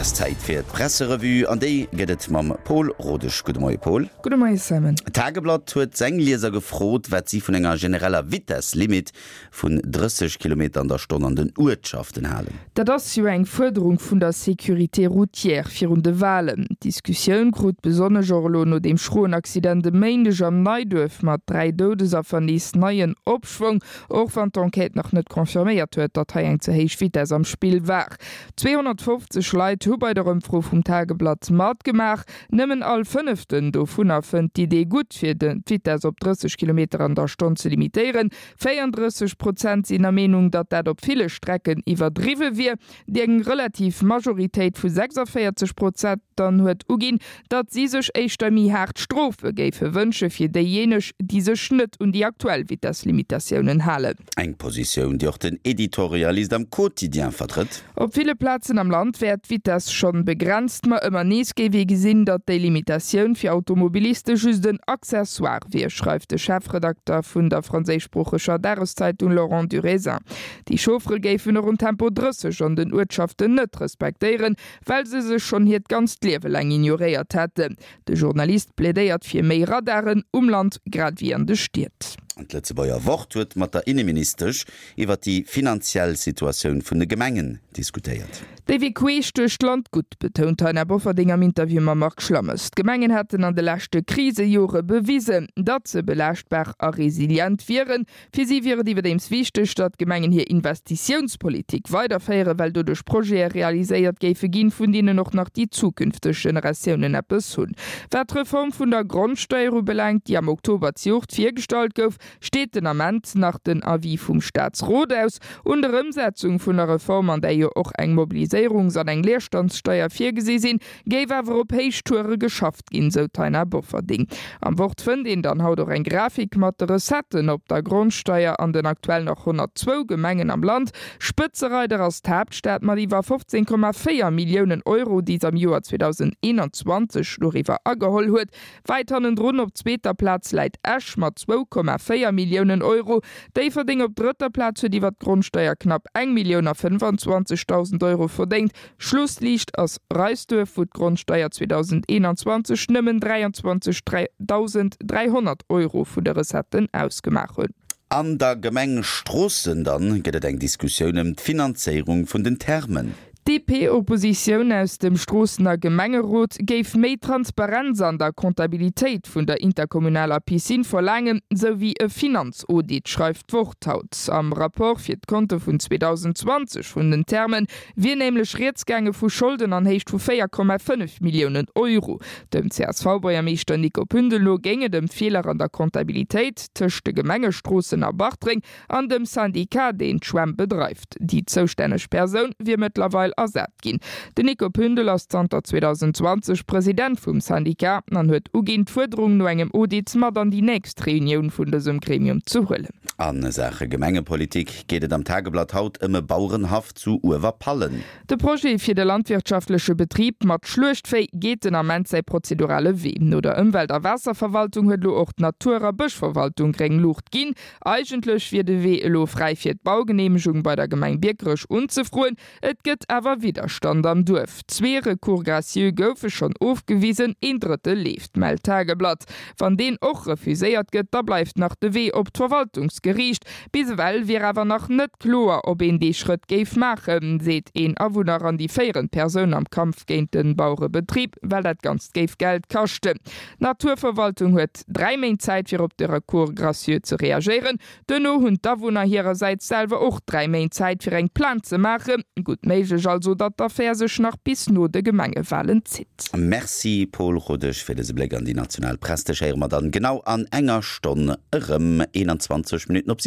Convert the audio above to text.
ass Zäit fir d'Presserevue an déi gëtt et mam Pol Rodesch. Gudde Moie Pol. Gudde Moie Simon. D'Tageblatt huet seng Lieser gefrot, wat si vun enger genereller Vitesslimit vun 30 Kilometer an der Stonn an den Uertschaften halen. Dat ass jo eng Fuerderung vun der Sécurité routière virun de Walen. D'Diskussioun krut besonnesch och elo no deem schroen Accident e Méindeg am Neiduerf mat 3 Doudesaffer nees neien Opschwong, och wann d'Enquête nach net confirméiert huet, datt hei eng ze héich Vitess am Spill war. 250 Leit hu bei der Ëmfro vum Tageblatt matgemaach. Nëmmen all Fënneften dovunner fënnt d'Idee gutt, fir d'Vitess op 30 Kilometer an der Stonn ze limitéieren. 34 Prozent sinn der Meenung, datt dat op ville Strecken iwwerdriwwe wier. Déi eng relativ Majoritéit vu 46 Prozent dann huet uginn, datt si sech éischter méi haart Strofe géife wënsche fir déijéineg, déi sech net un déi aktuell Vitesslimitatiounen halen. Eng Positioun, déi och den Editorialist am Quotidien vertrëtt. Op ville Plazen am Land wär d'Vitess schonn begrenzt, ma ëmmer nees géif ee gesinn, datt déi Limitatioun fir Automobiliste just en Accessoire wier, schreift de Chefredakter vun der franséischsproocheger Dageszeitung Laurent Durisin. Déi Chauffere géifen och en Tempo 30 an den Uertschaften net respektéieren, well se sech schonn hiert ganzt Liewe laang ignoréiert hätten. De Journalist plädéiert fir méi Radaren um Land grad ewéi an de Stied. D'Lëtzebuerger Wort huet mat der Inneministesch iwwer déi finanziell Situatioun vun de Gemengen diskutéiert. Déi wier queesch duerch d'Land gutt, betount d'Taina Bofferding am Interview mam Marc Schlammes. D'Gemengen hätten an de leschte Krisejore bewisen, datt se belaaschtbar a resilient wieren. Fir si wier et iwwerdeems wichteg, datt d'Gemengen hir Investitiounspolitik weiderféieren, well doduerch Projete realiséiert géife ginn, vun deenen och nach déi zukünfteg Generatiounen eppes hunn. Wat d'Reform vun der Grondsteier ubelaangt, déi am Oktober zejoert virgestallt gouf, steet den Ament nach den Avis vum Staatsrot aus. Un der Ëmsetzung vun der Reform, an där jo och eng Mobiliséierungs an eng Leerstandssteier virgesi sinn, géif awer op Héichtoure geschafft ginn, sou d'Taina Bofferding. Am Wort fënnt een dann haut och eng Grafik mat de Recetten op der Grondsteier an den aktuell nach 102 Gemengen am Land. Spëtzereider ass d'Haaptstad mat iwwer 15,4 Milliounen Euro, déi s'am Joer 2021 doriwwer ageholl huet. Wäit hannendrun op zweeter Plaz läit Esch mat 2,4 Milliounen Euro. Déifferdeng op drëtter Plaz huet iwwer d'Grondsteier knapp eng Millioun a 25.000 Euro verdéngt. Schlussliicht ass Reisduerf, wou d'Grondsteier 2021 nëmmen 23.300 Euro vun de Recetten ausgemaach hunn. An der Gemeng Stroossen dann gëtt et eng Diskussioun ëm d'Finanzéierung vun den Thermen. D'DP-Oppositioun aus dem Stroossener Gemengerot géif méi Transparenz an der Comptabilitéit vun der interkommunaler Piscine verlaangen, sou wéi e Finanzaudit, schreift d'Wort haut. Am Rapport fir d'Konte vun 2020 vun den Thermen wier nämlech rieds gaange vu Scholden an Héicht vu 4,5 Milliounen Euro. Dem CSV-Buergermeeschter Nico Pündel no géing et ëm Feeler an der Comptabilitéit tëscht de Gemenge Stroossen a Bartreng an dem Syndicat, deen d'Schwämm bedreift. Déi zoustänneg Persoun wier mëttlerweil ersat ginn. Den Nico Pündel ass zanter 2020 President vum Syndicat an huet uginn, d'Fuerderung no engem Audit mat an déi nächst Reunioun vun dësem Gremium ze huelen. A Saache Gemengepolitik geet et am Tageblatt haut ëm e Bauerenhaff zu Uewerpallen. De Projet fir de landwirtschaftleche Betrib mat Schluechtvéi geet den Ament säi prozedurale Wee. No der Ëmwelt a Waasserverwaltung huet elo och d'Natur a Bëschverwaltung gréng Luucht ginn. Eigentlech wier de Wee elo fräi fir d'Baugeneemegung bei der Gemeng Biekerech unzefroen. Et gëtt awer Widderstand am Duerf. Zwee Recours gracieux goufe schonn ofgewisen, een drëtte leeft, mellt d'Tageblatt. Wann deen och refuséiert gëtt, da bleift nach de Wee op d'Verwaltungsgeriicht. Bis ewell wier awer nach net kloer, ob een dee Schrëtt géif maachen, seet een Awunner an déi féierend Persoun am Kampf géint de Bauerebetrib, well dat Ganzt géif Geld kaschten. D'Naturverwaltung huet 3 Méint Zäit fir op de Recours gracieux ze reagéieren. Duerno hunn d'Awunner hirersäits selwer och 3 Méint Zäit fir eng Plainte ze maachen. Gutt méiglech also, datt d'Affär sech nach bis no de Gemengewalen zitt. Merci Paul Rodesch fir dëse Bléck an déi national Press. Dech héiere mer dann genau an enger Stonn erëm, 21 Minutten op 7.